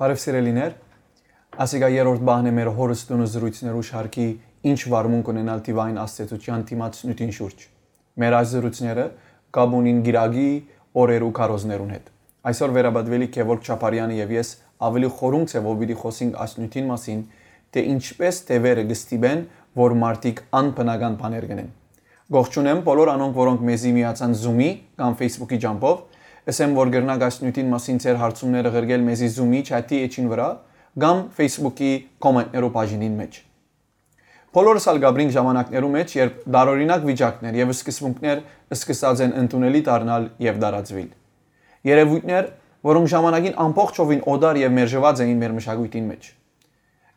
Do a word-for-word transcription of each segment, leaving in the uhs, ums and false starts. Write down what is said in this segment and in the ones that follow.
Բարեւ, սիրելիներ, ասիկա երրորդ բահն է մեր հորս տունը զրոյցներու շարքի «Ինչ վարմունք ունենալ թիվային ազդեցութեան դիմաց նիւթին շուրջ»։ Մեր այս զրոյցները կապ ունին կիրակի օրերու քարոզներուն հետ։ Այսօր վերապատուելիք Գևորգ Չապարեանը եւ ես ավելի խորունկ ձեւով պիտի խօսենք այս նիւթին մասին, թէ ինչպէս թեւերը կը ստիպեն, որ մարդիկ անբնական բաներ կ'ընեն։ Կողջունեմ բոլոր անոնք, որոնք մեզի միացան Zoom-ի կամ Facebook-ի ճամբով։ Ըսեմ, որ կրնաք այս նիւթին մասին ձեր հարցումները ղրկել մեզի Zoom-ի չաթի էջին վրայ կամ Facebook-ի կոմենտներու բաժինին մէջ։ Բոլորս ալ կապրինք ժամանակներու մէջ, երբ տարօրինակ վիճակներ եւ սկզբունքներ սկսած են ընդունելի դառնալ եւ տարածուիլ։ Երեւոյթներ, որոնք ժամանակին ամբողջովին օտար եւ մերժուած էին մեր մշակոյթին մէջ։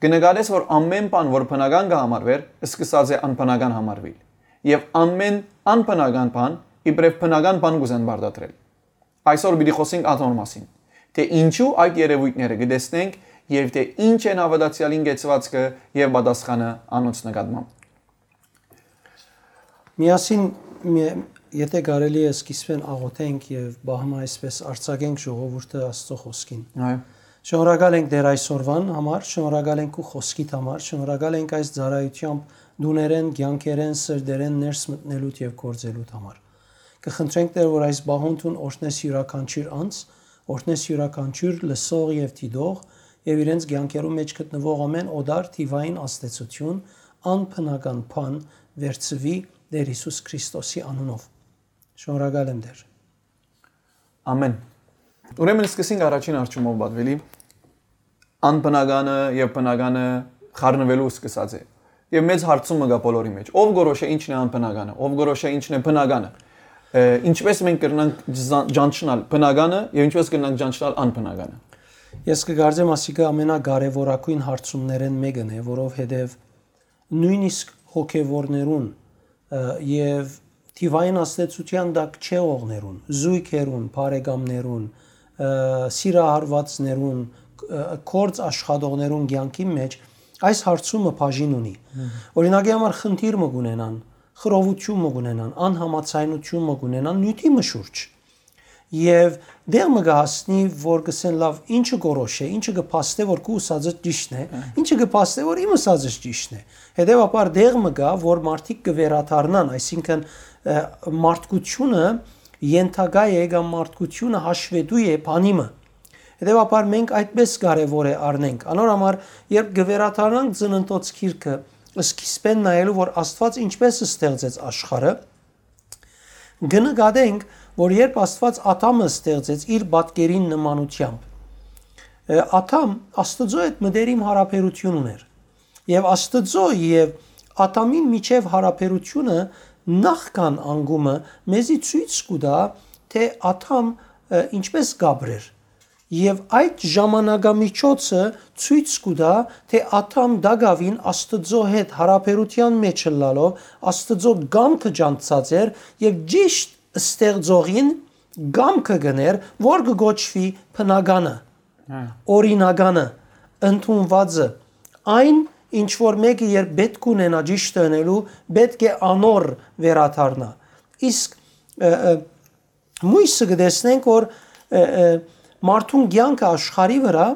Կը նկատես, որ ամէն բան, որ բնական կը համարուէր, սկսած է անբնական համարուիլ։ Եւ ամէն անբնական բան իբրեւ բնական բան կ'ուզեն պարտադրել։ Այսօր պիտի խօսենք ատոր մասին, թէ ինչու այդ երեւոյթները կը տեսնենք եւ թէ ինչ են հաւատացեալին կեցուածքը եւ պատասխանը անոնց նկատմամբ։ Միասին, մի- եթե կարելի է, սկիզբէն աղոթենք եւ բահմը այսպես արձակենք ժողովուրդը Աստծո խօսքին։ Այո։ Շնորհակալ ենք Տեր այսօրվան համար, շնորհակալ ենք քու խօսքիդ համար, շնորհակալ ենք այս ծառայութեամբ տուներէն, կեանքերէն, սրտերէն ներս մտնելուդ եւ գործելուդ համար։ Կը խնդրենք, Տեր, որ այս բահուն դուն օրհնես իւրաքանչիւր անձ, օրհնես իւրաքանչիւր լսող եւ դիտող եւ իրենց կեանքերու մէջ գտնուող ամէն օտար թիվային ազդեցութիւն, անբնական բան վերցուի Տեր Յիսուս Քրիստոսի անունով։ Շնորհակալ եմ, Տեր։ Ամէն։ Ուրեմն սկսենք առաջին հարցումով, պատուելի։ Անբնականը եւ բնականը խառնուելու սկսած է։ Եւ մեծ հարցումը կայ բոլորի մէջ. ով կորոշէ ինչն է անբնականը, ով կորոշէ ինչն է բնականը։ Ը, ինչպէս մենք կրնանք ջա- ճանչնալ բնականը եւ ինչպէս կրնանք ճանչնալ անբնականը։ Ես կկարծեմ, ասիկա ամենակարեւորագույն հարցումներէն մէկն է, որովհետեւ նոյնիսկ հոգեվորներուն, ը, եւ թիվային ազդեցութեան տակ չեղողներուն, զոյգերուն, բարեկամներուն, ը, սիրահարուածներուն, ը, գործ աշխատողներուն կեանքի մէջ այս հարցումը բաժին ունի։ Մհմ։ Օրինակի համար խնդիր մը կունենան, խռովութիւն մը կունենան, անհամաձայնութիւն մը կունենան նիւթի մը շուրջ։ Եւ դեղ մը կը հասնի, որ կ'ըսեն, լաւ, ինչը կորոշ է, ինչը կը փաստէ, որ քու ուսածը ճիշդն է, Ա։ ինչը կը փաստէ, որ իմ ուսածս ճիշդն է։ Հետեւաբար դեղ մը կայ, որ մարդիկ կը վերադառնան, այսինքն, ը, մարդկությունը ենթակայ է կամ մարդկությունը հաշվետու է բանի մը։ Հետեւաբար մենք այդպես կարեւոր է առնենք։ Անոր համար, երբ կը վերադառնանք ծննդոց գիրքը, սկիզբէն նայելու, որ Աստուած ինչպէս ստեղծեց աշխարհը, կը նկատենք, որ երբ Աստուած Ադամը ստեղծեց իր պատկերին նմանութեամբ, ը, Ադամ Աստուծոյ հետ մտերիմ յարաբերութիւն ունէր։ Եւ Աստուծոյ եւ Ադամին միջեւ յարաբերութիւնը նախքան անկումը մեզի ցոյց կու տայ, թէ Ադամ, ը, ինչպէս կ'ապրէր։ Եւ այդ ժամանակամիջոցը ցոյց կու տայ, թէ Ադամ տակաւին Աստուծոյ հետ յարաբերութեան մէջ ըլլալով Աստուծոյ կամքը ճանչցած էր եւ ճիշդ ստեղծողին կամքը կ'ընէր, որ կը կոչուի բնականը, Հա։ օրինականը, ընդունուածը, այն, ինչ որ մէկը երբ պէտք ունենայ ճիշդը ընելու, պէտք է անոր վերադառնայ։ Իսկ, ը, ը, մոյսը կը տեսնենք, որ, ը, ը, մարդուն կեանքը աշխարհի վրայ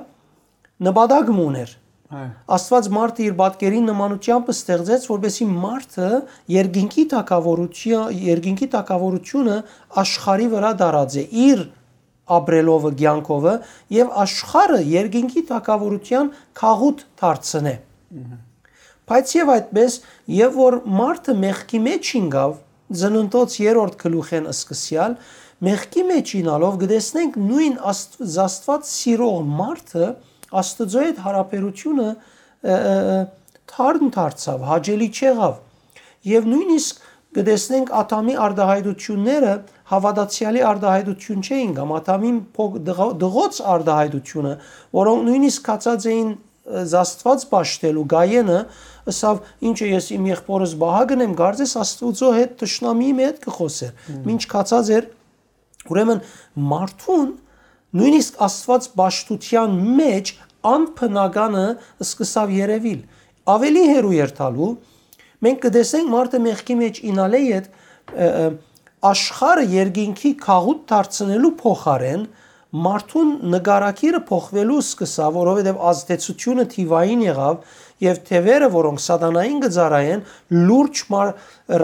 նպատակ մը ունէր։ Այո։ Աստուած մարդը իր պատկերին նմանութեամբ ստեղծեց, որպեսզի մարդը երկինքի թագաւորութիա-, երկինքի թագաւորութիւնը աշխարհի վրայ տարածէ իր ապրելովը, կեանքովը, եւ աշխարհը երկինքի թագաւորութեան գաղութ դարձնէ։ Մհմ։ Բայց եւ այդպես, եւ որ մարդը մեղքի մէջ ինկաւ, ծննդոց երրորդ գլուխէն սկսեալ, մեղքի մէջ ինալով կը տեսնենք նոյն Աստվ-, Աստուած սիրող մարդը Աստուծոյ հետ յարաբերութիւնը, ը, ը, ը, թարմ դարձաւ, հաճելի չեղաւ։ Եւ նոյնիսկ կը տեսնենք Ադամի արտահայտությունները հաւատացեալի արտահայտություն չէին կամ Ադամին փոք-, դղ-, դղոց արտահայտությունը, որոնք նոյնիսկ կացած էին, ը, Աստուած պաշտելու, Գայենը ըսաւ, «Ինչը ես իմ եղբորս պահակն եմ, կարծես Աստուծոյ հետ թշնամիի մը հետ կը խօսէր»։ Մմ։ Մինչ կացած էր, ուրեմն մարդուն նոյնիսկ Աստուած պաշտութեան մէջ անբնականը սկսաւ երեւիլ։ Ավելի հեռու երթալու, մենք կը տեսնենք մարդը մեղքի մէջ ինալէ յետ, ը, ը, աշխարհը երկինքի գաղութ դարձնելու փոխարէն Մարդուն նկարագիրը փոխուելու սկսաւ, որովհետեւ ազդեցութիւնը թիւային եղաւ, եւ թեւերը, որոնք սատանային կը ծառայեն, լուրջ մար-,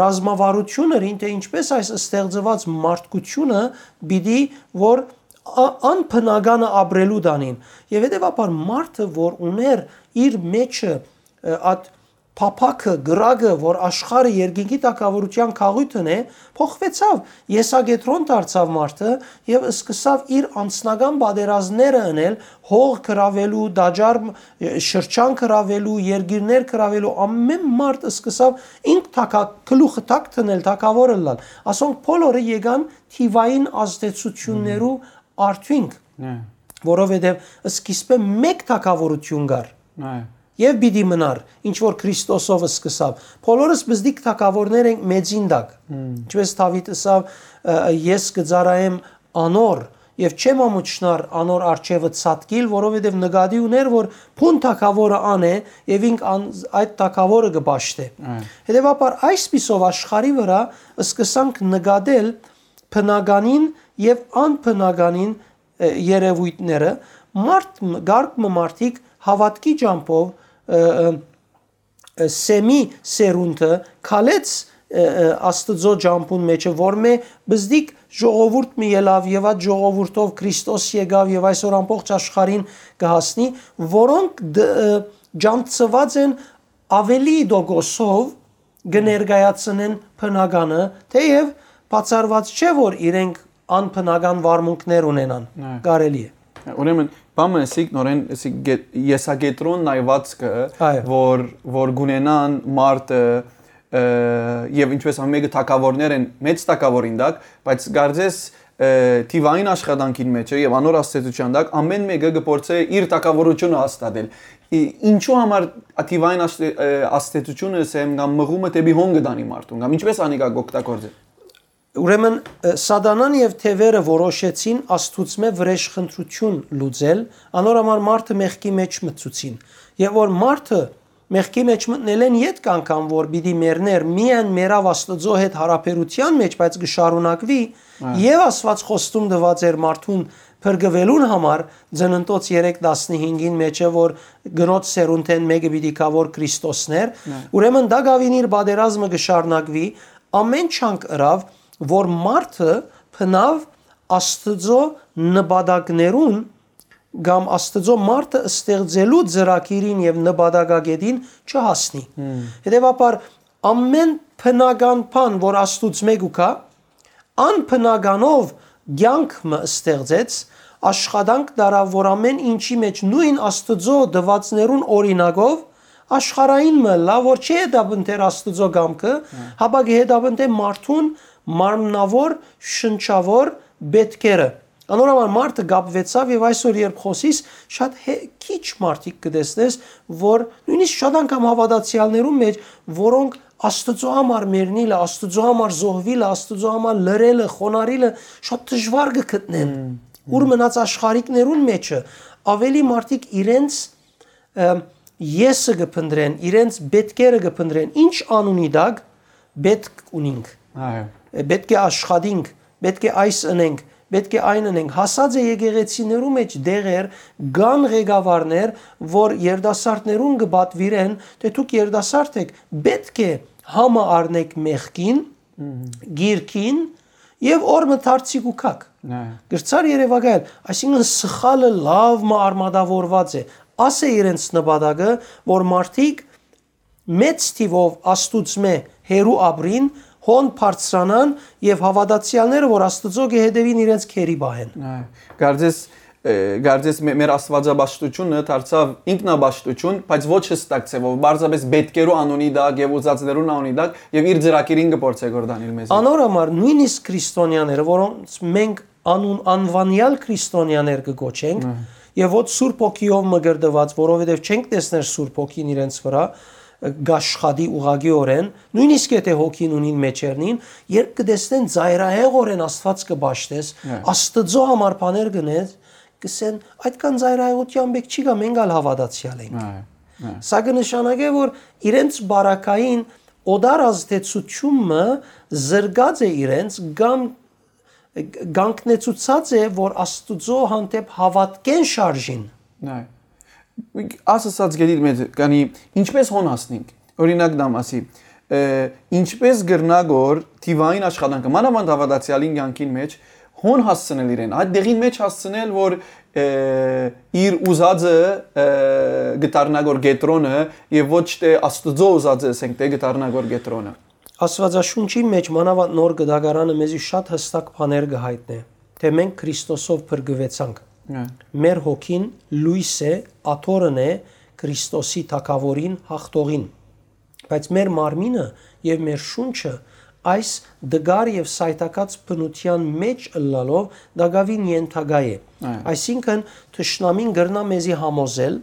ռազմավարութիւն էր, թէ ինչպէս այս ստեղծուած մարդկությունը պիտի որ ա-, անբնականը ապրելու տանին։ Եւ հետեւաբար մարդը, որ ունէր իր մեջը, ը, այդ փափաքը, կրակը, որ աշխարհը երկինքի թագաւորութեան գաղութն է, փոխուեցաւ, եսակեդրոն դարձաւ մարդը եւ սկսաւ իր անձնական պատերազմները ընել, հող գրաւելու, տաճար, ը, շրջան գրաւելու, երկիրներ գրաւելու, ամէն մարդ սկսաւ ինք թագա-, գլուխը թակ դնել, թագաւոր ըլլալ։ Ասոնք բոլորը եկան թիւային ազդեցութիւններու արդիւնք, Այ, որովհետեւ սկիզբը մէկ թագաւորութիւն կար այ, եւ պիտի մնար, ինչ որ Քրիստոսով սկսաւ։ Բոլորս բզդիկ թագաւորներ ենք մեծին տակ։ Մմ։ Ինչպես Դաւիթ ըսաւ, ը, «Ես կը ծառայեմ անոր եւ չեմ ամուչնար անոր առջեւը ցատկիլ», որովհետեւ նկատի ունէր, որ բուն թագաւորը ան է եւ ինք ան-, այդ թագաւորը կը պաշտէ։ Այ։ Հետեւաբար այսպիսով աշխարհի վրայ սկսանք նկատել բնականին եւ անբնականին, ը, երեւոյթները, մարդ մը, կարգ մը մարդիկ հաւատքի ճամբով, ը, ը, ը, Սեմի սերունդը քալեց, ը, ը, Աստուծոյ ճամբուն մեջը, որ մէ բզդիկ ժողովուրդ մը ելաւ եւ այդ ժողովուրդով Քրիստոս եկաւ եւ այսօր ամբողջ աշխարհին կը հասնի, որոնք դ-, ը, ջանցուած են աւելի տոկոսով կը ներկայացնեն բնականը, թէեւ բացառուած չէ, որ իրենք անբնական վարմունքներ ունենան, Այ։ կարելի է։ Ուրեմն, բանը սիկ նորեն, սիկ գետ-, եսակեդրոն նայվածքը, Այո։ որ, որ գունենան մարդը, ը, եւ ինչպես ամեն մեկը թագաւորներ են, մեծ թագաւորին տակ, բայց կարծես, ը, թիվային աշխատանքին մեջ է եւ անոր ազդեցության տակ ամեն մեկը կը փորձէ իր թագաւորությունը հաստատել։ Ի-, ինչու համար թիվային ազդե-, ը, ազդեցությունը, սեմ կամ մղումը դեպի հոն կը տանի մարդուն, կամ ինչպես անիկա կօգտագործել։ Ուրեմն, ը, սատանան եւ թեւերը որոշեցին Աստուծմէ վրեժխնդրութիւն լուծել, անոր համար մարդը մեղքի մեջ մտցուցին։ Եւ որ մարդը մեղքի մեջ մտնելէն ետք անգամ որ պիտի մեռներ, միայն մեռաւ Աստուծոյ հետ յարաբերութեան մեջ, բայց կը շարունակուի, Այ։ Եւս Աստուած խոստում տուած էր մարդուն փրկուելուն համար, Ծննդոց երեք տասնհինգին մեջը, որ կնոջ սերունդէն մէկը պիտի գայ որ Քրիստոսն էր, Այ։ Ուրեմն դա գաւին իր պատերազմը կը շարունակուի, ամէն չանք ըրաւ, որ մարդը բնաւ Աստուծոյ նպատակներուն կամ Աստուծոյ մարդը ստեղծելու ծրագիրին եւ նպատակագետին չհասնի։ Մմ։ Հետեւաբար, ամէն բնական բան, որ Աստուծմէ կու գայ, անբնականով կեանք մը ստեղծեց, աշխատանք տարաւ, որ ամէն ինչի մեջ նոյն Աստուծոյ տուածներուն օրինակով աշխարհային մը ըլլայ, որ չի հետապնդեր Աստուծոյ կամքը, Հա։ Հապա կը հետապնդէ մարդուն մարմնաւոր, շնչաւոր պէտքերը։ Անոր համար մարդը կապուեցաւ եւ այսօր, երբ խօսիս, շատ հե-, քիչ մարդիկ կը տեսնես, որ նոյնիսկ շատ անգամ հաւատացեալներուն մեջ, որոնք Աստուծոյ համար մեռնիլը, Աստուծոյ համար զոհուիլը, Աստուծոյ համար լռելը, խոնարհիլը շատ դժուար կը գտնեն։ Մմ, մմ։ Ուր մնաց աշխարհիկներուն մեջը, աւելի մարդիկ իրենց, ը, եսը կը փնտրեն, իրենց պէտքերը կը փնտրեն, ինչ անունի տակ պէտք ունինք։ Այո։ Պէտք է աշխատինք, պէտք է այս ընենք, պէտք է այն ընենք։ Հասած է եկեղեցիներու մեջ դեղեր, կան ղեկավարներ, որ երիտասարդներուն կը պատուիրեն, թէ դուք երիտասարդ էք, պէտք է համը առնեք մեղքին, Մհմ։ Գիրքին եւ օր մը դարձի կու գաք։ Այո։ Գրցար երեւակայել, այսինքն սխալը լաւ մը արմատավորված է։ Աս է իրենց նպատակը, որ մարդիկ մեծ թիվով Աստուծմէ հեռու ապրին, հոն բարձրանան եւ հաւատացեալները, որ Աստուծոյ կը հետեւին, իրենց քերի պահեն։ Այո, կարծես, ը, կարծես մե-, մեր աստվածապաշտությունը դարձաւ ինքնապաշտություն, բայց ոչ հստակ ձևով, պարզապես պէտքերու անունի տակ եւ ուզածներուն անունի տակ, եւ իր ծրագիրին կը փորձէ կորդանիլ մեզի։ Անոր համար նոյնիսկ քրիստոնյաները, որոնց մենք անուն անվանեալ քրիստոնյաներ կը կոչենք, Ահա։ Եւ ոչ Սուրբ Հոգիով մկրտուած, որովհետեւ չենք տեսներ Սուրբ Հոգին իրենց վրայ, ը, կաշխատի ուղղակիօրէն, նոյնիսկ եթէ հոգին ունին մեջերնին, երբ կը տեսնեն ծայրահեղօրէն Աստուած կը պաշտես, Այո։ Աստուծոյ համար բաներ կ'ընես, կ'ըսեն, «Այդքան ծայրահեղութեան պէք չի գայ, մենք ալ հաւատացեալ ենք»։ Այո, այո։ Սա կը նշանակէ, որ իրենց բարակային օտար ազդեցութիւնը զրկած է իրենց կամ կանգնեցուցած է, որ Աստուծոյ հանդէպ հաւատքէն շարժին։ Այ։ Ասացած գետիդ մէջ կանի, ինչպես հոն հասնենք։ Օրինակ դամ ասի, ը, ինչպես կրնա գոր թիվային աշխատանքը, մանավանդ հաւատացեալին կյանքին մեջ, հոն հասցնել իրեն, այդ դեղին մեջ հասցնել, որ, ը, իր ուզածը, ը, կդառնա գոր կեդրոնը եւ ոչ թե Աստուծոյ ուզածը, ասենք, թե կդառնա գոր կեդրոնը։ Աստուածաշունչին մեջ, մանաւանդ Նոր Կտակարանը, մեզի շատ յստակ բաներ կը յայտնէ, թէ մենք Քրիստոսով փրկուեցանք։ Հա։ Մեր հոգին լոյս է, աթոռն է Քրիստոսի թագաւորին, յաղթողին։ Բայց մեր մարմինը եւ մեր շունչը այս դգար եւ սայթակած բնութեան մեջ ըլլալով տակաւին ենթակայ է։ Այո։ Այսինքն, թշնամին կրնայ մեզի համոզել,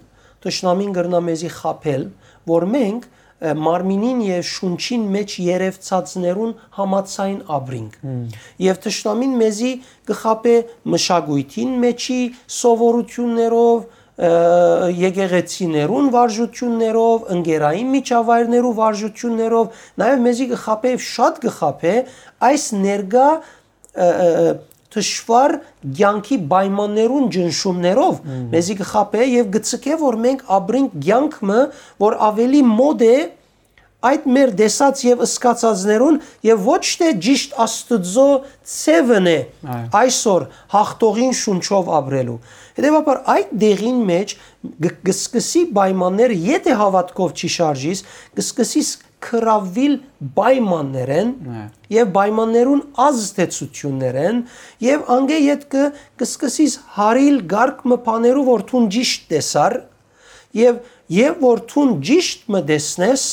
թշնամին կրնայ մեզի խաբել, որ մենք, ը, մարմինին եւ շունչին մեջ երեւցածներուն համաձայն ապրինք։ Հմ։ Եւ թշնամին մեզի կը խաբէ մշակոյթին մեջի սովորութիւններով, ը, եկեղեցիներուն վարժութիւններով, ընկերային միջավայրներու վարժութիւններով, նաեւ մեզի կը խաբէ, շատ կը խաբէ այս ներկայ, ը, ը, ը, թշուառ կեանքի պայմաններուն ճնշումներով, Մհմ։ մեզի կը խաբէ եւ կը ցկէ, որ մենք ապրենք կեանք մը, որ աւելի մօտ է այդ մեր տեսած եւ զգացածներուն եւ ոչ թե ճիշտ Աստուծոյ ձեւն է Այո։ այսօր յաղթողին շունչով ապրելու։ Հետեւաբար, այդ դեղին մեջ կը, կը սկսի պայմաններ, եթէ հաւատքով չի շարժիս, կը սկսի ս-, կրաւիլ պայմաններեն Այո։ եւ պայմաններուն ազդեցութիւններեն եւ անգէ յետ կը, կը սկսիս հարիլ կարգ մը բաներու, որ դուն ճիշտ տեսար, եւ, եւ որ դուն ճիշտ մը տեսնես,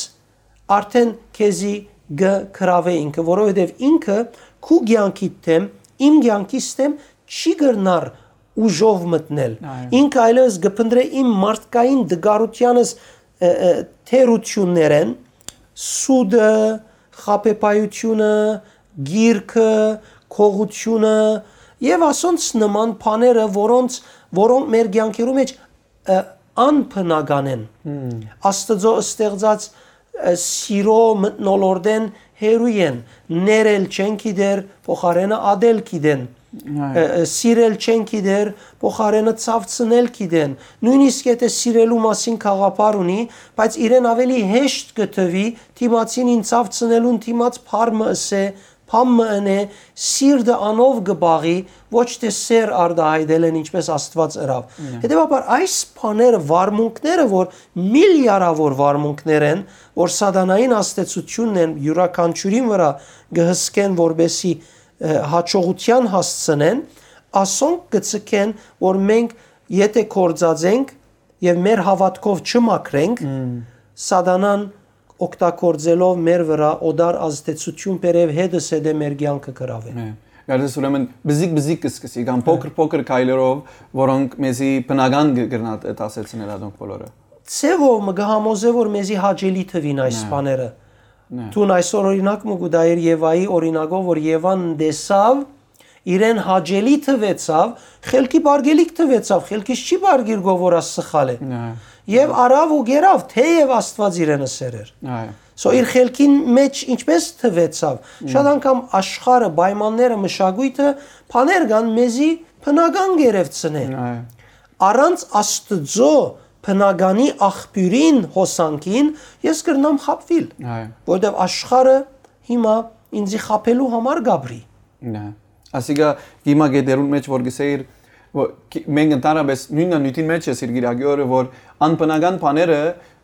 արդեն քեզի կը կրաւէ ինքը, որովհետեւ ինքը քու կեանքիդ դէմ, իմ կեանքիս դէմ չի կրնար ուժով մտնել։ Այո։ Ինքը այլեւս կը փնտռէ իմ մարդկային դգարութեանս, ը, ը, թերություններեն, սուտը, խաբեբայությունը, գիրքը, գողությունը եւ ասոնց նման բաները, որոնց, որոնք մեր կեանքերու մեջ, ը, անբնական են։ Հմ։ Աստուծոյ ստեղծած, ը, սիրո մթնոլորտէն հեռու են, ներել չեն գիտեր, փոխարենը ատել գիտեն, Այո։ ը, ը, սիրել չեն գիտեր, փոխարենը ցաւցնել գիտեն։ Նոյնիսկ եթէ սիրելու մասին գաղափար ունի, բայց իրեն աւելի հեշտ կը թուի դիմացին ին ցաւցնելուն դիմաց բառ մը ըսէ, բան մը ընէ, սիրտը անով կը պաղի, ոչ թե սեր արտայայտելէն, ինչպես Աստուած ըրաւ։ Նե։ Հետեւաբար, այս բաները, վարմունքները, որ միլիարավոր վարմունքներ են, որ սատանային ազդեցութիւնն են, իւրաքանչիւրին վրայ կը հսկեն, որպեսզի, ը, հաջողութեան հասցնեն, ասոնք կը ցկեն, որ մենք եթէ գործածենք եւ մեր հաւատքով չմաքրենք, Մմ։ սատանան օգտագործելով մեր վրայ օտար ազդեցութիւն բերեւ հետս հետը մեր կեանքը կրաւէ։ Մե, կարծես ուրեմն բզիկ-բզիկ կը սկսի, կամ փոքր-փոքր քայլերով, որոնք մեզի բնական կը-, կրնա տ-, դասեցնել ադոնք բոլորը։ Ձեւով մը կը համոզէ, որ մեզի հաճելի թվին այս Նե։ բաները։ Նե։ Դուն այսօր օրինակ մը կու տայիր Եվայի օրինակով, որ Եվան տեսաւ, իրեն հաճելի թվեցաւ, խելքի պարգելիք թվեցաւ, խելքիս չի պարգիր գո որ աս սխալ է։ Նե։ Եվ արաւ ու գերավ, թեև Աստուած իրենը սեր էր։ Այո։ So իր խելքին մեջ ինչպես թվեցաւ։ Շատ անգամ աշխարհը, պայմանները, մշակոյթը, բաներ կան մեզի բնական գերեւցնե։ Այո։ Առանց Աստուծոյ բնականի աղբիւրին, հոսանքին, ես կրնամ խաբուիլ, Այո։ որովհետեւ աշխարհը հիմա ինձի խաբելու համար կապրի։ Նե։ Ասիկա հիմա գետերուն մեջ որ գսեիր, որ քի-, մենք ընդհանրապես նույնն նյութին մեջ ես իր գիրագի օրը, որ անբնական բաները,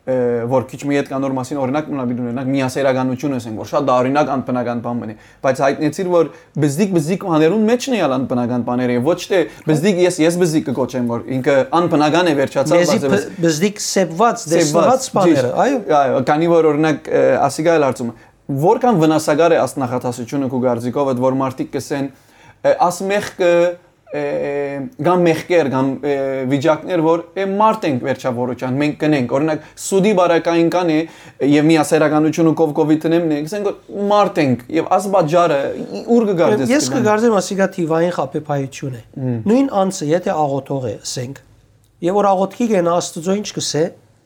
ը, որ քիչ մի հետ կան նոր մասին, օրինակ մնալ պիտի ունենանք, միասերականությունը ասենք, որ շատ դա օրինակ անբնական բան մնի, բայց հայտնեցիր, որ բզդիկ, բզդիկ բաներուն մեջն է ալ անբնական բաները, եւ ոչ թե բզդիկ, ես, ես բզդիկ կը կոչեմ, որ ինքը անբնական է վերջացած, Մեզի բայց բ-, բզդիկ սեպված, Սեպված, տեսնված բաները, ճիշտ։ այո։ Այո, քանի որ օրինակ, ը, ասիկա էլ հարցումը, որքան վնասակար է աս նախադասությունը քու կարծիքովդ, որ մարդիկ կսեն, ը, աս մեղքը, ը, կամ մեղքեր, կամ, ը, վիճակներ, որ, ը, մարդ ենք վերջավորության, մենք կնենք, օրինակ, սուտի բարակային կան է, եւ միասերականությունը կով կովի տնեմ, նե, կսենք, որ մարդ ենք, եւ աս պատճառը, ի-, ուր կգարձես Ես կգան։ կգարձեմ, ասիկա թիվային խաբեբայություն է։ Մմ։ Նույն անձը, եթէ աղոթող է, ասենք, եւ որ աղոթքի գնա, Աստուծոյ ինչ կսե,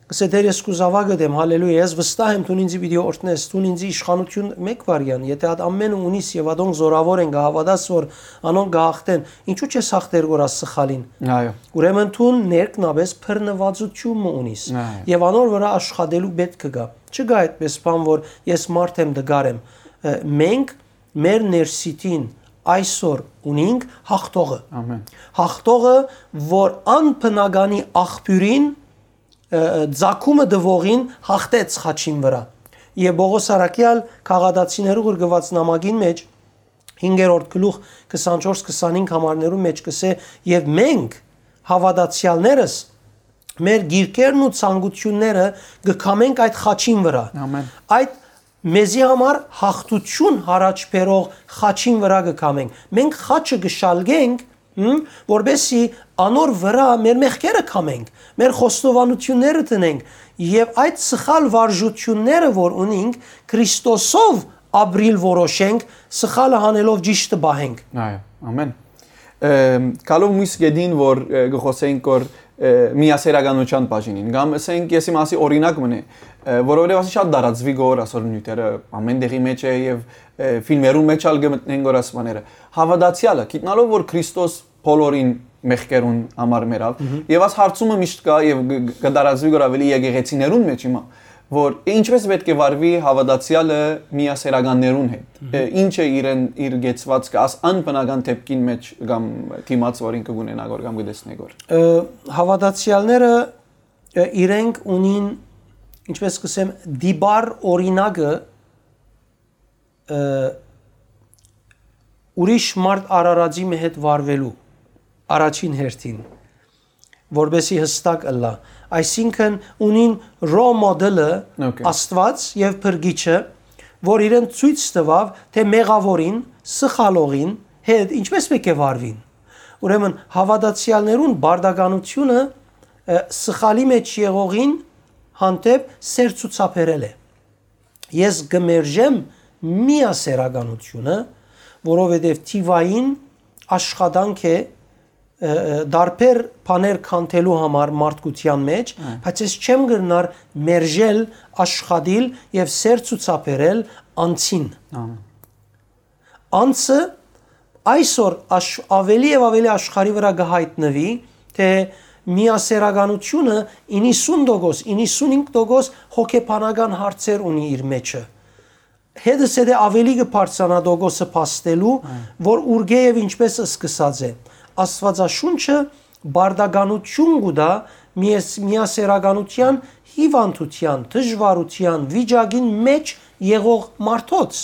Կսե Տէր, ես քու զաւակդ եմ, հալելույա, ես վստահ եմ, դուն ինձի պիտի օրհնես, դուն ինձի իշխանութիւն մէկ վարեան, եթէ ատ ամէնը ունիս եւ ատոնք զորաւոր են, կը հաւատաս որ անոնք կը յաղթեն, ինչու՞ չես յաղթեր գորաս սխալին։ Այո։ Ուրեմն դուն ներքնաբես բռնուածութիւն մը ունիս Այո։ Եւ անոր վրայ աշխատելու պէտք կը գայ։ Չկայ այդպես բան որ ես մարդ եմ, դգար եմ։ Ը, մենք մեր ներսիտին այսօր ունինք հաղթողը։ Ամեն։ Հաղթողը, որ անբնականի աղբիւրին, ը, ը, ձագումը տուողին հաղթեց խաչին վրայ։ Եւ Պողոս Առաքեալ Գաղատացիներու ղրկուած նամակին մէջ, հինգերորդ գլուխ, քսանչորս քսանհինգ համարներու մէջ կսե. «Եւ մենք, հաւատացեալներս, մեր գիրքերն ու ցանկութիւնները կը քամենք այդ խաչին վրայ»։ Ամեն։ Այդ մեզի համար հաղթութիւն յառաջ բերող խաչին վրայ կը քամենք։ Մենք խաչը կը շալկենք, հմ, որպեսզի անոր վրայ մեր մեղքերը քամենք, մեր խոստովանութիւնները տնենք եւ այդ սխալ վարժութիւնները, որ ունինք, Քրիստոսով ապրիլ որոշենք, սխալը հանելով ճիշդը պահենք։ Այո, ամեն։ Ըմ, գալով մյուս կետին, որ, ը, կը խոսենք, որ, ը, միասերականության բաժինին, կամ, ասենք, եսի մասի օրինակ մնե, ը, որովհետև ասի շատ տարածուի գոր, ասոր նիւթերը ամեն տեղի մեջ է եւ, ը, ֆիլմերուն մեջ ալ կը մտնեն գոր ասմաները։ Հաւատացեալը, գիտնալով, որ Քրիստոս բոլորին մեղքերուն համար մեռաւ, Մհմ։ Եւ աս հարցումը միշտ կայ եւ գ-, գ-, կը տարածուի գոր ավելի եկեղեցիներուն մեջ հիմա, որ ինչպես պէտք է վարուի հաւատացեալը միասերականներուն հետ։ Մհմ։ Ը, ինչ է իրեն, իր կեցվածքը, աս անբնական դեպքին մեջ կամ դիմաց, որ ինքը կունենա գոր կամ կտեսնէ գոր։ Ը, հաւատացեալները, ը, իրենք ունին, ինչպես կսեմ, դիպար օրինակը, ը, ուրիշ մարդ արարածի մը հետ վարուելու առաջին հերթին, որպեսի հստակ ըլլայ։ Այսինքն ունին role model-ը Okay. Աստուած եւ Փրկիչը, որ իրեն ցոյց տուաւ, թէ մեղաւորին, սխալողին հետ ինչպես պէտք է վարուին։ Ուրեմն հաւատացեալներուն բարդականությունը, ը, սխալի մեջ եղողին հանդէպ սեր ցուցաբերել է։ Ես կը մերժեմ միասերականությունը, որովհետև թիվային աշխատանք է, ը, ը, տարբեր բաներ քանդելու համար մարդկության մեջ, Այո։ Բայց ես չեմ կրնար մերժել, աշխատիլ եւ սեր ցուցաբերել անձին։ Ահա։ Անձը այսօր աշ-, ավելի եւ ավելի աշխարհի վրա կը հայտնուի, թէ միասերականությունը իննսուն տոկոս, իննսունհինգ տոկոս հոգեբանական հարցեր ունի իր մեջը։ Հետս հետը ավելի կը բարձրանայ տոկոսը փաստելու, Այո։ Որ ուրկէ եւ ինչպես սկսած է։ Աստուածաշունչը բարդականություն կու տայ միաս-, միասերականության հիվանդության, դժվարության, վիճակին մեջ եղող մարդոց։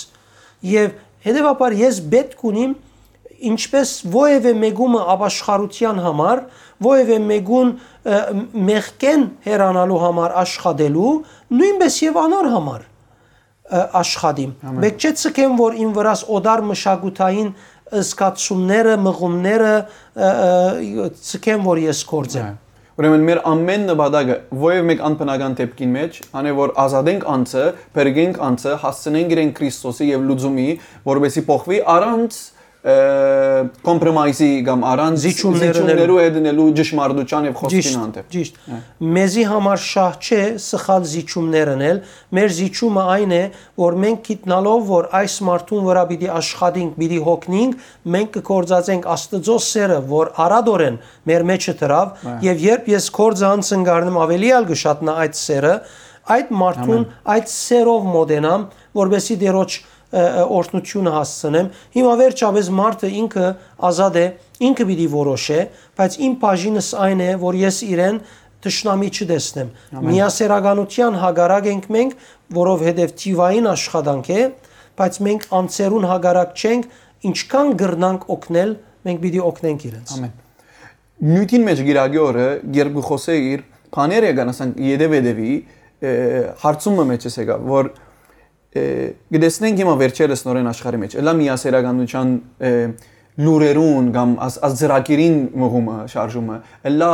Եվ հետևաբար ես պէտք ունիմ ինչպես ովեւէ մեկումը ապաշխարության համար, ովեւէ մեկուն, ը, մեղքէն հեռանալու համար աշխատելու, նոյնպես եւ անոր համար, ը, աշխատիմ։ Ամեն։ Մէկ չէ ցկեմ, որ իմ վրաս օտար մշակութային զգացումները, մղումները, ը, ը, ցկեմ, որ ես գործեմ։ Այո։ Ուրեմն մեր ամեն նպատակը, ովեւ մեկ անբնական դեպքին մեջ, անէ որ ազատենք անձը, փրկենք անձը, հասցնենք իրեն Քրիստոսի եւ լուծումի, որպեսզի փոխվի առանց, ը, compromise-ի կամ առանց Զիջումներ զիջումներու ընելու։ Հետ ընելու ճշմարտության եւ խոսքին Ճիշտ, հանդեպ։ Ճիշտ։ Հա։ Մեզի համար շահ չէ սխալ զիջումներ ընել, մեր զիջումը այն է, որ մենք գիտնալով, որ այս մարդուն վրա պիտի աշխատենք, պիտի հոգնենք, մենք կգործածենք Աստծո սերը, որ արատորեն մեր մեջը դրաւ, Հա։ Եւ երբ ես գործը անցնկարնեմ, ավելի ալ կշատնա այդ սերը, այդ մարդուն Ամեն։ Այդ սերով մոտենամ, որպեսզի Տերոջ, ը, ը, օրհնությունը հասցնեմ։ Հիմա վերջապես մարդը ինքը ազատ է, ինքը պիտի որոշե, բայց իմ բաժինս այն է, որ ես իրեն թշնամի չտեսնեմ։ Ամեն։ Միասերականության հակառակ ենք մենք, որովհետև թիվային աշխատանք է, բայց մենք անձերուն հակառակ չենք, ինչքան կրնանք օգնել, մենք պիտի օգնենք իրենց։ Ամեն։ Նիւթին մեջ Կիրակի օրը, երբ կը խոսէ իր բաները եկան, ասենք, ետև-ետևի, ը, հարցումը մեջս եկա, որ, ը, կտեսնենք հիմա վերջերս նորեն աշխարհի մեջ, ըլլա միասերականության, ը, լուրերուն կամ աս-, աս ծրագիրին մղումը, շարժումը, ըլլա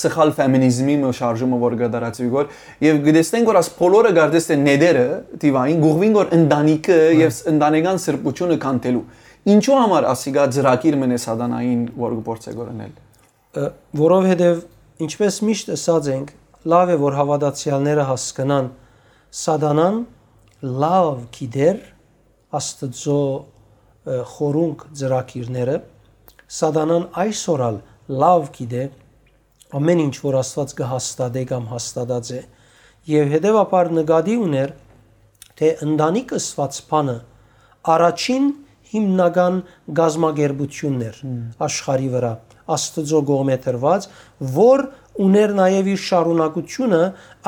սխալ ֆեմինիզմի մը շարժումը, որ կատարածուի գոր, եւ կտեսնենք, որ աս բոլորը կարծես թե նետերը, թիվային, գուղվին գոր ընտանիքը Հա։ Եվ ս-, ընտանեկան սրբությունը քանդելու։ Ինչու համար ասիկա ծրագիր մնե սատանային, որ կփորձե գոր ընել։ Ը, որովհետև, ինչպես միշտ ըսած ենք, Լաւ է որ հաւատացեալները հասկնան, Սատանան լաւ գիտեր Աստուծոյ խորունկ ծրագիրները։ Սատանան այսօր ալ լաւ գիտէ ամէն ինչ որ Աստուած կը հաստատէ կամ հաստատած է, եւ հետեւաբար նկատի ունէր, թէ ընտանիք ըսուած բանը առաջին հիմնական կազմակերպութիւնն էր Մմ։ Աշխարհի վրայ, Աստուծոյ կողմէ դրուած, որ ունէր նաեւ իր շարունակութիւնը,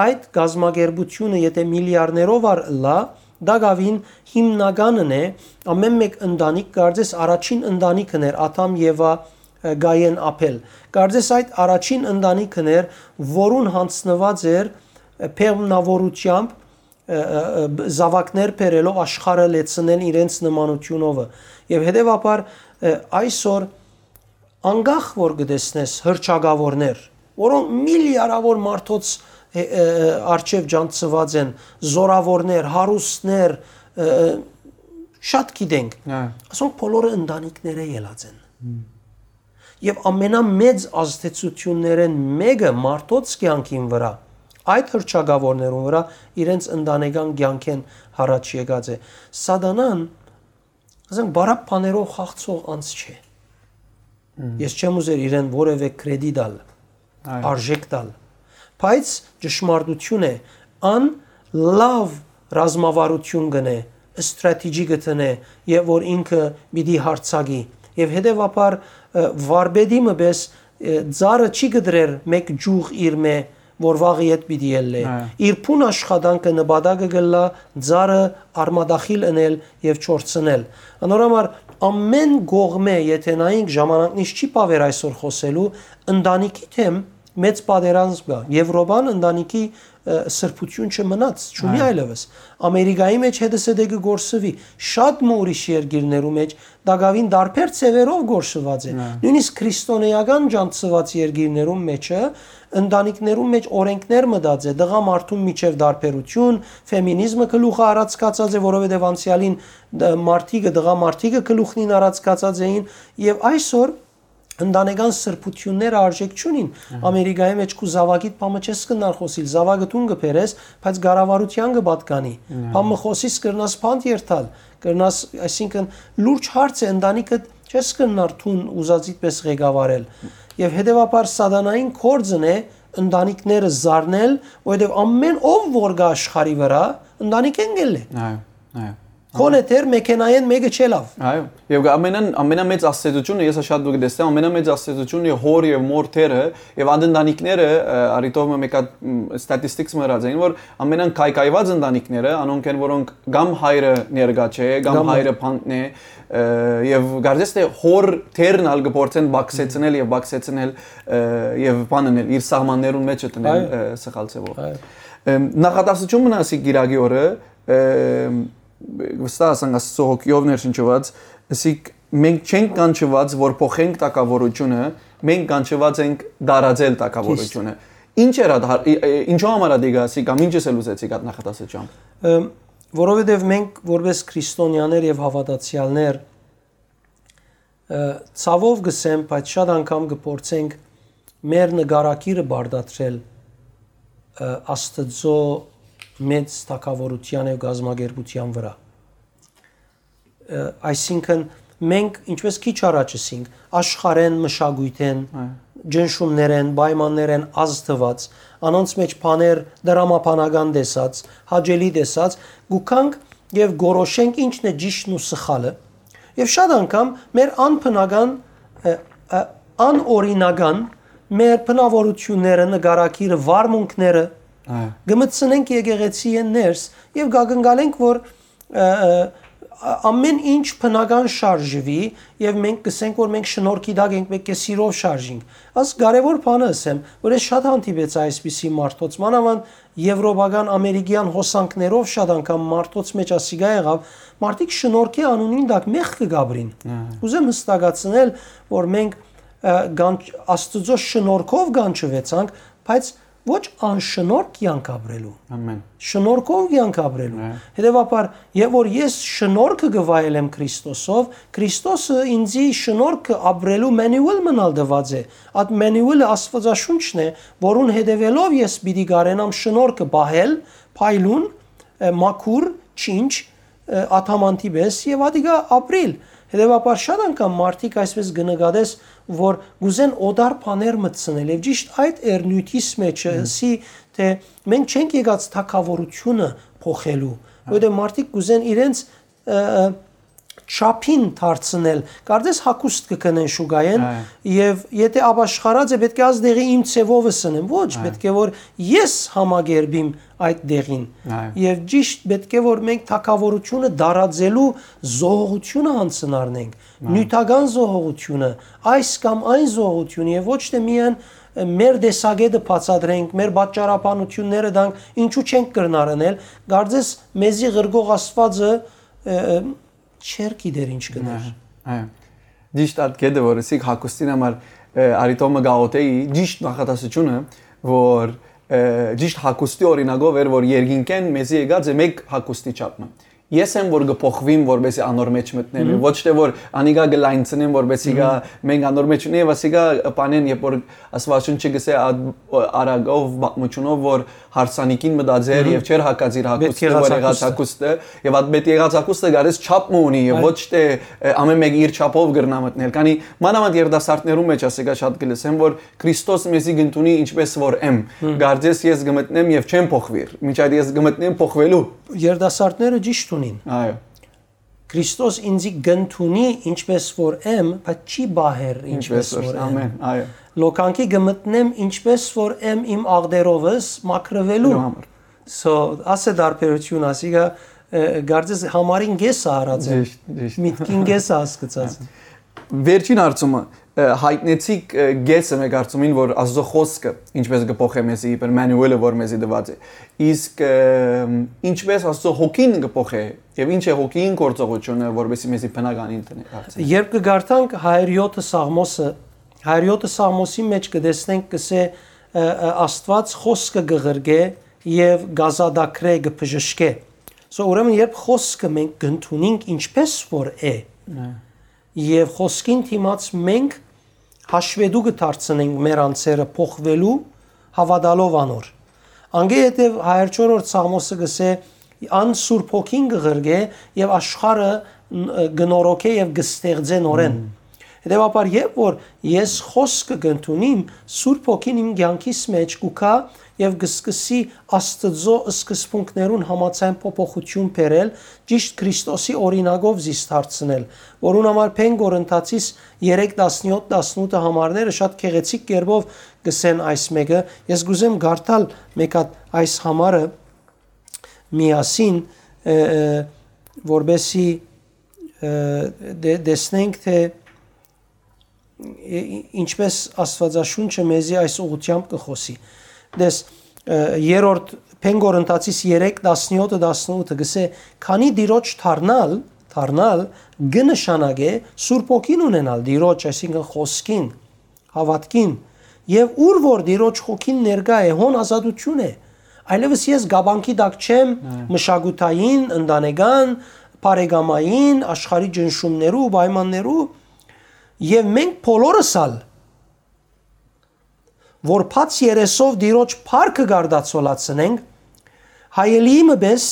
այդ կազմակերպութիւնը, եթէ միլիարներով ալ ըլլայ, տակաւին հիմնականն է, ամէն մէկ ընտանիք, կարծես առաջին ընտանիքն էր Ադամ, Եվա, Կայեն, Աբել։ Կարծես այդ առաջին ընտանիքն էր, որուն յանձնուած էր բեղմնաւորութեամբ, ը, ը, ը, զաւակներ բերելով աշխարհը լեցնել իրենց նմանութիւնովը։ Եւ հետեւաբար, ը, այսօր անկախ որ կը տեսնես հռչակաւորներ, որոնք միլիարավոր մարդոց, ը, ը, ը, առջեւ ջանցուած են, զորաւորներ, հարուստներ, ը, ը, շատ գիտենք, Հա։ Ասոնք բոլորը ընտանիքներէ ելած են։ Հմ։ Եւ ամենամեծ ազդեցություններէն մէկը մարդոց կեանքին վրայ, այդ հռչակաւորներուն վրայ իրենց ընտանեկան կեանքէն յառաջ եկած է։ Սատանան, ասենք, բարակ բաներով խաղցող անձ չէ։ Մմ։ Ես չեմ ուզեր իրեն որևէ կրեդի տալ, Այո։ Արժեք տալ, բայց ճշմարտություն է, ան լաւ ռազմավարություն կ'ընէ, ստրատեգի կը դնէ, եւ որ ինքը պիտի յարձակի, եւ հետեւաբար, ը, վարպետի մը պէս, ը, ծառը չի կտրեր մէկ ճյուղ իր մէ, որ վաղը ետ պիտի ելլէ։ Այո։ Իր բուն աշխատանքը նպատակը կ'ըլլայ ծառը արմատախիլ ընել եւ չորցնել։ Անոր համար ամէն կողմէ, եթէ նայենք, ժամանակն իս չի բաւեր այսօր խօսելու, ընտանիքի դէմ մեծ պատերազմ կայ։ Եվրոպան ընտանիքի, ը, սրբութիւն չմնաց, չունի Այո։ Այլեւս։ Ամերիկայի մէջ հետսեդեքը կորսուի, շատ մը ուրիշ երկիրներու մէջ տակաւին տարբեր ձեւերով կորսուած է։ Այո։ Նոյնիսկ քրիստոնէական ջանցուած երկիրներուն մէջը, ընտանիքներուն մէջ օրենքներ մտած է, տղամարդուն միջեւ տարբերություն, ֆեմինիզմը գլուխը առած գացած է, որովհետեւ անցեալին դ-, մարդիկը, տղամարդիկը գլուխնին առած գացած էին, եւ այսօր ընտանեկան սրբութիւնները արժեք չունին։ Ահա։ Ամերիկայի մէջ քու զաւակիդ բամը չես կնար խօսիլ, զաւակը դուն կը բերես, բայց կառավարութեան կը պատկանի։ Ահա։ Բամը խօսիս կրնաս բանտ երթալ, կրնաս, այսինքն, լուրջ հարց է, ընտանիքը չես կնար դուն ուզածիդ պէս ղեկավարել։ Եվ հետեւաբար սատանային գործն է ընտանիքները զարնել, որովհետեւ ամեն ով որ կա աշխարհի վրայ, ընտանիքէն գելլէ։ Այո, այո։ Քոնը դեռ մեքենայէն մէկը չելաւ։ Այո, եւ ամենան, ամենամեծ ազդեցությունը, ես շատ դուք տեսնեմ, ամենամեծ ազդեցությունը հոր եւ մոր թերը, եւ այդ ընտանիքները, ը, արիտով մը մեկ հատ, մ, statistics մը ըրած էին, որ ամենան քայքայված ընտանիքները, անոնք են, որոնք կամ հայրը ներկա չէ, կամ Կամ հայրը փանտն է, ը, եւ կարծես թե հոր թերն ալ կփորձեն բաքսեցնել եւ բաքսեցնել, ը, եւ բան անել, իր սահմաններուն մեջ դնել, Այո։ ը, սխալ ձևով։ Այո։ Ըմ, նախատասություն մնա ասի գիրագի օրը, ը, վստահ ասանք Աստծո հոգիով ներշնչված, ասիկ մենք չենք կանչված, որ փոխենք թագավորությունը, մենք կանչված ենք տարածել թագավորությունը։ Ճիշտ։ Ինչ էր այդ հա-, ի-, ի-, ինչու համար ա դիգա ասի կամ ինչ ես էլ ուզեցիք այդ նախատասությամբ։ Ը, որովհետև մենք որպես քրիստոնյաներ և հավատացյալներ, ը, ցավով կսեմ, բայց շատ անգամ կփորձենք մեր նկարագիրը բարդատրել, ը, Աստծո մեծ թագավորության և կազմակերպության վրա։ Ը, այսինքն մենք, ինչպես քիչ առաջ ասինք, աշխարհեն, մշակույթեն, Այո։ ճնշումներեն, պայմաններեն ազդված, անոնց մեջ բաներ դրամաբանական տեսած, հաճելի տեսած, գուքանք և գորոշենք ինչն է ճիշդն ու սխալը, և շատ անգամ մեր անբնական, ը, ը, անօրինական մեր բնավորությունները, նկարագիրը, վարմունքները Այո։ կմտցնենք եկեղեցի են ներս և կակնկալենք, որ, ը, ը, ա-, ամեն ինչ բնական շարժվի և մենք կսենք, որ մենք շնորհքի տակ ենք, պետք է սիրով շարժինք։ Աս կարևոր բանը ասեմ, որ ես շատ հանդիպեցա այսպիսի մարդոց, մանավանդ եվրոպական, ամերիկյան հոսանքներով շատ անգամ մարդոց մեջ ասիկա եղավ, մարդիկ շնորհքի անունին տակ մեղքը կապրին։ Ահա։ Ուզեմ հստակացնել, որ մենք, ը, կանչ-, Աստծո շնորհքով կանչվեցանք, բայց Ոչ անշնորհք կեանք ապրելու։ Ամեն։ Շնորհքով կեանք ապրելու։ Հա։ Հետեւաբար, երբ որ ես շնորհքը կը վայելեմ Քրիստոսով, Քրիստոսը ինձի շնորհքը ապրելու manual մնալ տուած է։ Այդ manual-ը Աստվածաշունչն է, որուն հետեւելով ես պիտի կարենամ շնորհքը պահել, փայլուն, ը, մաքուր, չինչ, ը, ադամանդի պէս եւ ատիկա ապրիլ։ Հետեւաբար շատ անգամ մարդիկ այսպես կը նկատես, որ կ'ուզեն օտար բաներ մտցնել եւ ճիշտ այդ էր նիւթիս մէջը, Մհմ։ Ըսի թէ մենք չենք եկած թագաւորութիւնը փոխելու, Հա։ Որովհետեւ մարդիկ կ'ուզեն իրենց, ը, ը, չափին դարձնել, կարծես հագուստ կը գնեն շուկայէն Հա։ Եւ եթե ապաշխարած է, պէտք է աս դեղի իմ ձեւովս ընեմ, ոչ, Հա։ Պէտք է որ ես համակերպիմ այդ դեղին։ Այո։ Եվ ճիշտ պէտք է որ մենք թագաւորութիւնը դարածելու զոհողութիւնը յանձնարնենք, Այո։ Նիւթական զոհողութիւնը, այս կամ այն զոհողութիւնը, եւ ոչ թէ միայն, ը, մեր տեսակէտը բացատրենք, մեր պատճառաբանութիւնները տանք, ինչու չենք կրնար ընել, կարծես մեզի ղրկող Աստուածը, ը, ը, չէր գիտեր ինչ կ'ընէր։ Այո, այո։ Ճիշտ այդ կետը, որ ըսիք հագուստին համար, ը, Արիտոմը գաղութեի, ճիշտ նախատասությունը, որ, ը, ճիշտ հագուստի օրինակով էր, որ երկինքէն մեզի եկած է մեկ հագուստի չափ մը։ Ես եմ, որ կը փոխվիմ, որպեսզի անոր մեջ մտնեմ, Մհմ։ Ոչ թէ որ անիկա կը լայնցնեմ, որպեսզի գա, Մհմ։ Մենք անոր մեջ մտնենք, եւ ասիկա պանեն, երբ որ Աստուածունչը գսե, «Ա-, արագով պատմությունով, որ հարսանիքին մտած էր Մհմ։ Եւ չէր հագած իր Պետք հագուստը, եղած որ եղած հագուստը։ Հագուստը, եւ այդ պետք եղած հագուստը գարես չափ մը ունի, եւ Այո։ Ոչ թէ, ը, ամեն մեկը իր չափով կրնա մտնել»։ Քանի մանավանդ երիտասարդներու մեջ ասիկա շատ կը լսեմ, որ Քրիստոս մեզի կ'ընդունի ինչպես որ եմ։ Մհմ։ Կարծես ես կը մտնեմ եւ չեմ փոխվիր, մինչ այդ ես կը մտնեմ փոխվելու։ Երիտասարդները ճիշտ ունին։ Այո։ Քրիստոս ինձի կ'ընդունի ինչպես որ եմ, բայց չի պահեր ինչպես Ինչպես որ որ, եմ։ Ամեն, այո։ Լոկանքի կը մտնեմ ինչպես որ եմ իմ աղտերովս մաքրվելու Նո համար։ So, ասե դարբերություն, ասիկա, ը, կարծես համարին կեսը արած եմ, Ճիշտ, ճիշտ։ Միտքին կեսը հասկցած։ Վերջին հարցումը, ը, հայտնեցիք, ը, կեսը մեկ հարցումին, որ Աստծո խոսքը ինչպես կը փոխէ մեզի, իբր manual-ը, որ մեզի տուած է։ Իսկ, ը, ինչպես Աստծո հոգին կը փոխէ, եւ ինչ է հոգին գործողությունը, որպեսզի մեզի բնականին տնէ դարձնի։ Երբ կը կարդանք Հայր Յոթը Սաղմոսը, Հայր Յոթը Սաղմոսի մեջ կը տեսնենք, կսե, ը, ը, Աստուած խոսքը կը ղրկէ եւ կազատագրէ, կը բժշկէ։ So, ուրեմն, երբ խոսքը մենք կ'ընդունենք ինչպես որ է, Այո։ Եւ խոսքին դիմաց մենք հաշվետու կը դարձնենք մեր անձերը փոխվելու, հաւատալով անոր։ Անգե հետեւ Հայր Չորրորդ Սաղմոսը կսե, «Ան Սուրբ Հոգին կը ղրկէ եւ աշխարհը ն-, կը նորոգէ եւ կը ստեղծէ նորեն»։ Մմ։ Հետեւաբար, երբ որ ես խոսքը կ'ընդունիմ, Սուրբ Հոգին իմ կեանքիս մեջ կու գայ եւ կը սկսի Աստծո սկզբունքներուն համաձայն փոփոխություն բերել, ճիշտ Քրիստոսի օրինակով զիս դարձնել, որուն համար Փեն Կորինթացիս երեք, տասնյոթ, տասնութը համարները շատ գեղեցիկ կերպով կսեն այս մեկը։ Ես կ'ուզեմ կարդալ մեկ հատ այս համարը միասին, ը, ը, որպեսի, ը, դե-, տեսնենք, թէ, ը, ինչպես Աստուածաշունչը մեզի այս ուղղությամբ կը խօսի։ Տես, ը, երրորդ Փեն Կորինթացիս երեք, տասնյոթը, տասնութը կսե, «Քանի Տիրոջ դառնալ, դառնալ կը նշանակէ Սուրբ Հոգին ունենալ, Տիրոջ, այսինքն՝ խոսքին, հաւատքին, եւ ուր որ Տիրոջ Հոգին ներկայ է, հոն ազատութիւն է։ Այլեւս ես կապանքի տակ չեմ Այո։ Մշակութային, ընտանեկան, բարեկամային, աշխարհի ճնշումներու, պայմաններու, եւ մենք բոլորս ալ, որ բաց երեսով Տիրոջ փառքը կարտացոլացնենք, հայելիի մը պէս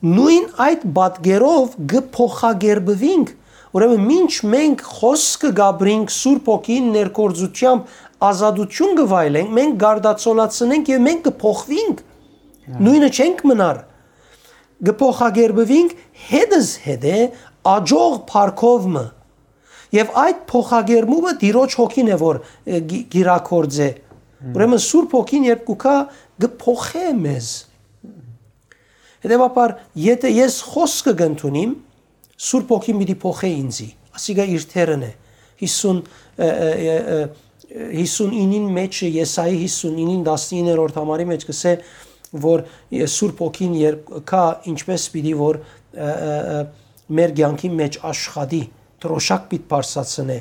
նոյն այդ պատկերով կը փոխակերպուինք։ Ուրեմն, մինչ մենք խոսքը կապրինք Սուրբ Հոգին ներգործությամբ ազատութիւն կը վայելենք, մենք կարտացոլացնենք եւ մենք կը փոխուինք։ Նոյնը չենք մնար։ Կը փոխակերպուինք հետզհետե աջող փառքով մը։ Եւ այդ փոխակերպումը Տիրոջ Հոգին է, որ, ը, գի-, կիրագործէ։ Ուրեմն Սուրբ Հոգին երբ կու գայ, կը փոխէ մեզ։ Հետեւաբար, եթե ես խոսքը կ'ընդունիմ, Սուրբ Հոգին պիտի փոխէ ինձի։ Ասիկա իր թերն է։ Հիսուն, ը, ը, ը, ը, հիսունինին մեջ, Եսայի հիսունինին տասնիններորդ համարի մեջ կսե, որ, ը, Սուրբ Հոգին երբ գայ, ինչպես պիտի որ, ը, ը, ը, մեր կեանքի մեջ աշխատի, դրոշակ պիտ բարձրացնէ,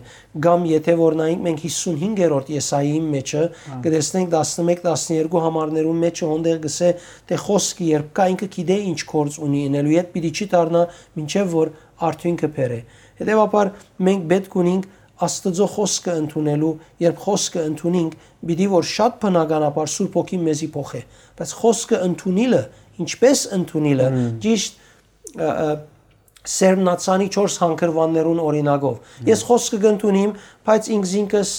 կամ եթէ որ նայենք մենք հիսունհինգերորդ Եսայիին մէջը, կը տեսնենք տասնմէկ, տասներկու համարներուն մէջը, հոնդեղ գսէ, թէ խոսքը երբ կայ, ինքը գիտէ ինչ գործ ունի ընելու, ետ պիտի չի դառնայ, մինչեւ որ արդիւնքը բերէ։ Հետեւաբար մենք պէտք ունինք Աստուծոյ խօսքը ընդունելու, երբ խօսքը ընդունինք, պիտի որ շատ բնականաբար Սուրբ Հոգին մեզի փոխէ։ Բայց խօսքը ընդունիլը, ինչպէս ընդունիլը, ճիշտ, ը, ը, սերմնացանի չորս հանգրուաններուն օրինակով։ Ես խօսքը կընդունիմ, բայց ինքզինքս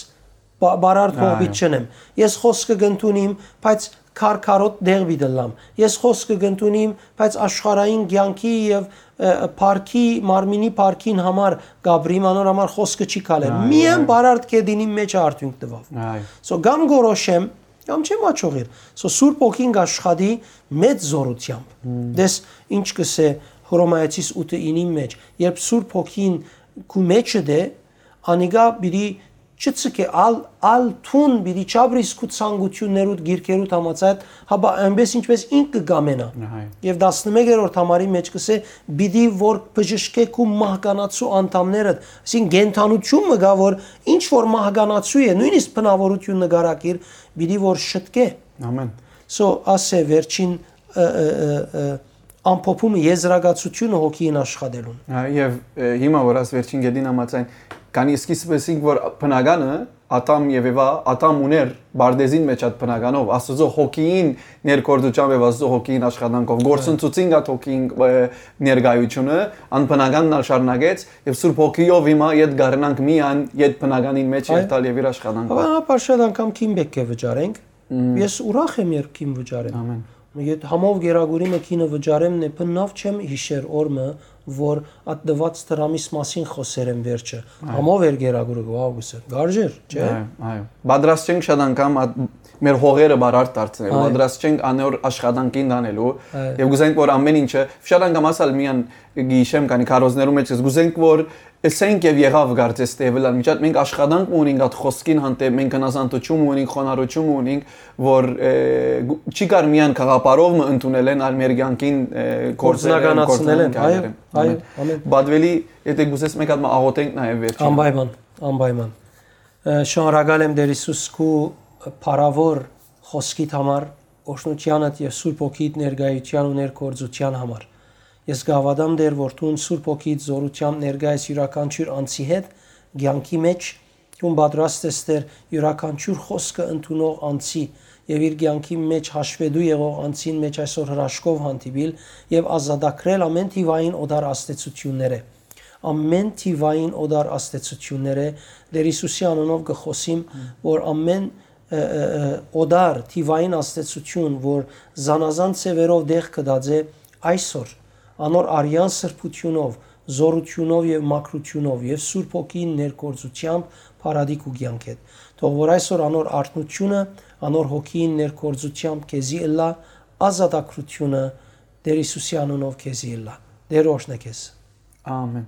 բա-, բարարդ կողմից չնեմ։ Ես խօսքը կընդունիմ, բայց քարքարոտ դեղ պիտի լամ։ Ես խօսքը կընդունիմ, բայց աշխարհային կեանքի եւ, ը, ը, փառքի, մարմինի փառքին համար կապրիմ, անոր համար խօսքը չի քալեր։ Այո, Միայն այո։ Բարարդ կեդինին մէջ արդիւնք տուաւ։ Այո։ So, կամ գորոշեմ, կամ չեմ աջողիր։ So, Սուրբ Հոգին կաշխատի մեծ զորութեամբ։ Դες ինչ կսէ Հռոմայեցիս ութը ինին մէջ, երբ Սուրբ Հոգին քու մեջը դէ, անիկա պիտի չցկէ, ալ, ալ թուն պիտի չապրիս քու ցանկութիւններուդ, գիրքերուդ համաձայն, հապա այնպես ինչպես ինք կը կամենայ։ Այո։ Եւ տասնմեկերորդ համարի մէջ կսէ, պիտի որ բժշկէ քու մահկանացու անդամներդ, այսինքն կենդանութիւն մը կայ, որ ինչ որ մահկանացու է, նոյնիսկ բնաւորութիւն նկարագիր, պիտի որ շտկէ։ Ամեն։ So, ասէ վերջին, ը, ը, ը, ը, ամփոփումը, եզրակացութիւնը հոգին աշխատելուն։ Ա, եւ, ը, հիմա որ աս վերջին գետին համաձայն, քանի սկիզբը ասինք, որ բնականը, Ադամ եւ Էվա, Ադամ ուներ պարտեզին մէջ այդ բնականով, Աստուծոյ հոգին ներգործությամբ եւ Աստուծոյ հոգին աշխատանքով, Այո։ Գործընծուցին այդ հոգին, ը, ներկայությունը, անբնականն ալ շարունակեց, եւ Սուրբ Հոգիով հիմա ետ գարնանք միան, ետ բնականին մէջ Այո։ Երթալ եւ իր աշխատանքով։ Հապա, հապա շատ անգամ քին պէտք է վճարենք, Մմ։ Ես ուրախ եմ, երբ քին վճարեմ։ Ամեն։ Եթ համով գերագուրի մը քինը վճարեմ, նե բննաւ չեմ յիշեր օր մը, որ այդ տված դրամիս մասին խօսեր եմ վերջը։ Այո։ Համով էր գերագուրը, վաղ գուսեր։ Գարժեր, չէ՞։ Այո, այո։ Պատրաստ չենք շատ անգամ այդ մեր հողերը բարարդ դարձնել, Այո։ Պատրաստ չենք անոր աշխատանքին տանելու, Այո։ Եւ գուզենք, որ ամեն ինչը, շատ անգամ ասալ միան գիշեմ քանի քարոզներու մեջ ես, գուզենք, որ Ըսենք եւ եղաւ կարծես թէ Էվելան միջատ, մենք աշխատանք մը ունենք այդ խօսքին հանդէպ, մենք հնազանդութիւն մը ունենք, խոնարհութիւն մը ունենք, որ, ը, գու-, չի կար միայն գաղափարով մը ընդունել են, այլ մեր կեանքին, ը, գործերեն, Գործնականացնել են, գործնական այո, քայլերեն։ այո, Ամեն։ Ամեն։ Բադվելի, եթե գուզես մեկ հատ մը աղոթենք նաեւ վերջին։ Անպայման, անպայման։ Ը, շնորհակալ եմ Տեր Հիսուս քու փառաւոր խօսքիդ համար, օրհնութեանդ եւ Սուրբ Հոգիդ ներկայութեան ու ներգործութեան համար։ Ես կհաւատամ, Տեր, որ դուն Սուրբ Հոգիդ զորութեամբ ներկայ ես իւրաքանչիւր անձի հետ, կեանքի մէջ, դուն պատրաստ ես, Տեր, իւրաքանչիւր խօսքը ընդունող անձի եւ իր կեանքի մէջ հաշվետու եղող անձին մէջ այսօր հրաշքով հանդիպիլ եւ ազատագրել ամեն թիվային օտար ազդեցութիւններէ։ Ամեն թիվային օտար ազդեցութիւններէ, Տեր Հիսուսի անունով կը խօսիմ, որ ամեն, ը, ը, ը, օտար թիվային ազդեցութիւն, որ զանազան ձեւերով տեղ կդած է, այսօր անոր արեան սրբութիւնով, զորութիւնով եւ մաքրութիւնով եւ Սուրբ Հոգին ներգործութեամբ փարատի քու կեանքեդ։ Թող որ այսօր անոր արթնութիւնը, անոր Հոգին ներգործութեամբ քեզի ըլլայ, ազատագրութիւնը Տեր Հիսուսի անունով քեզի ըլլայ։ Տեր օրհնէ քեզ։ Ամեն։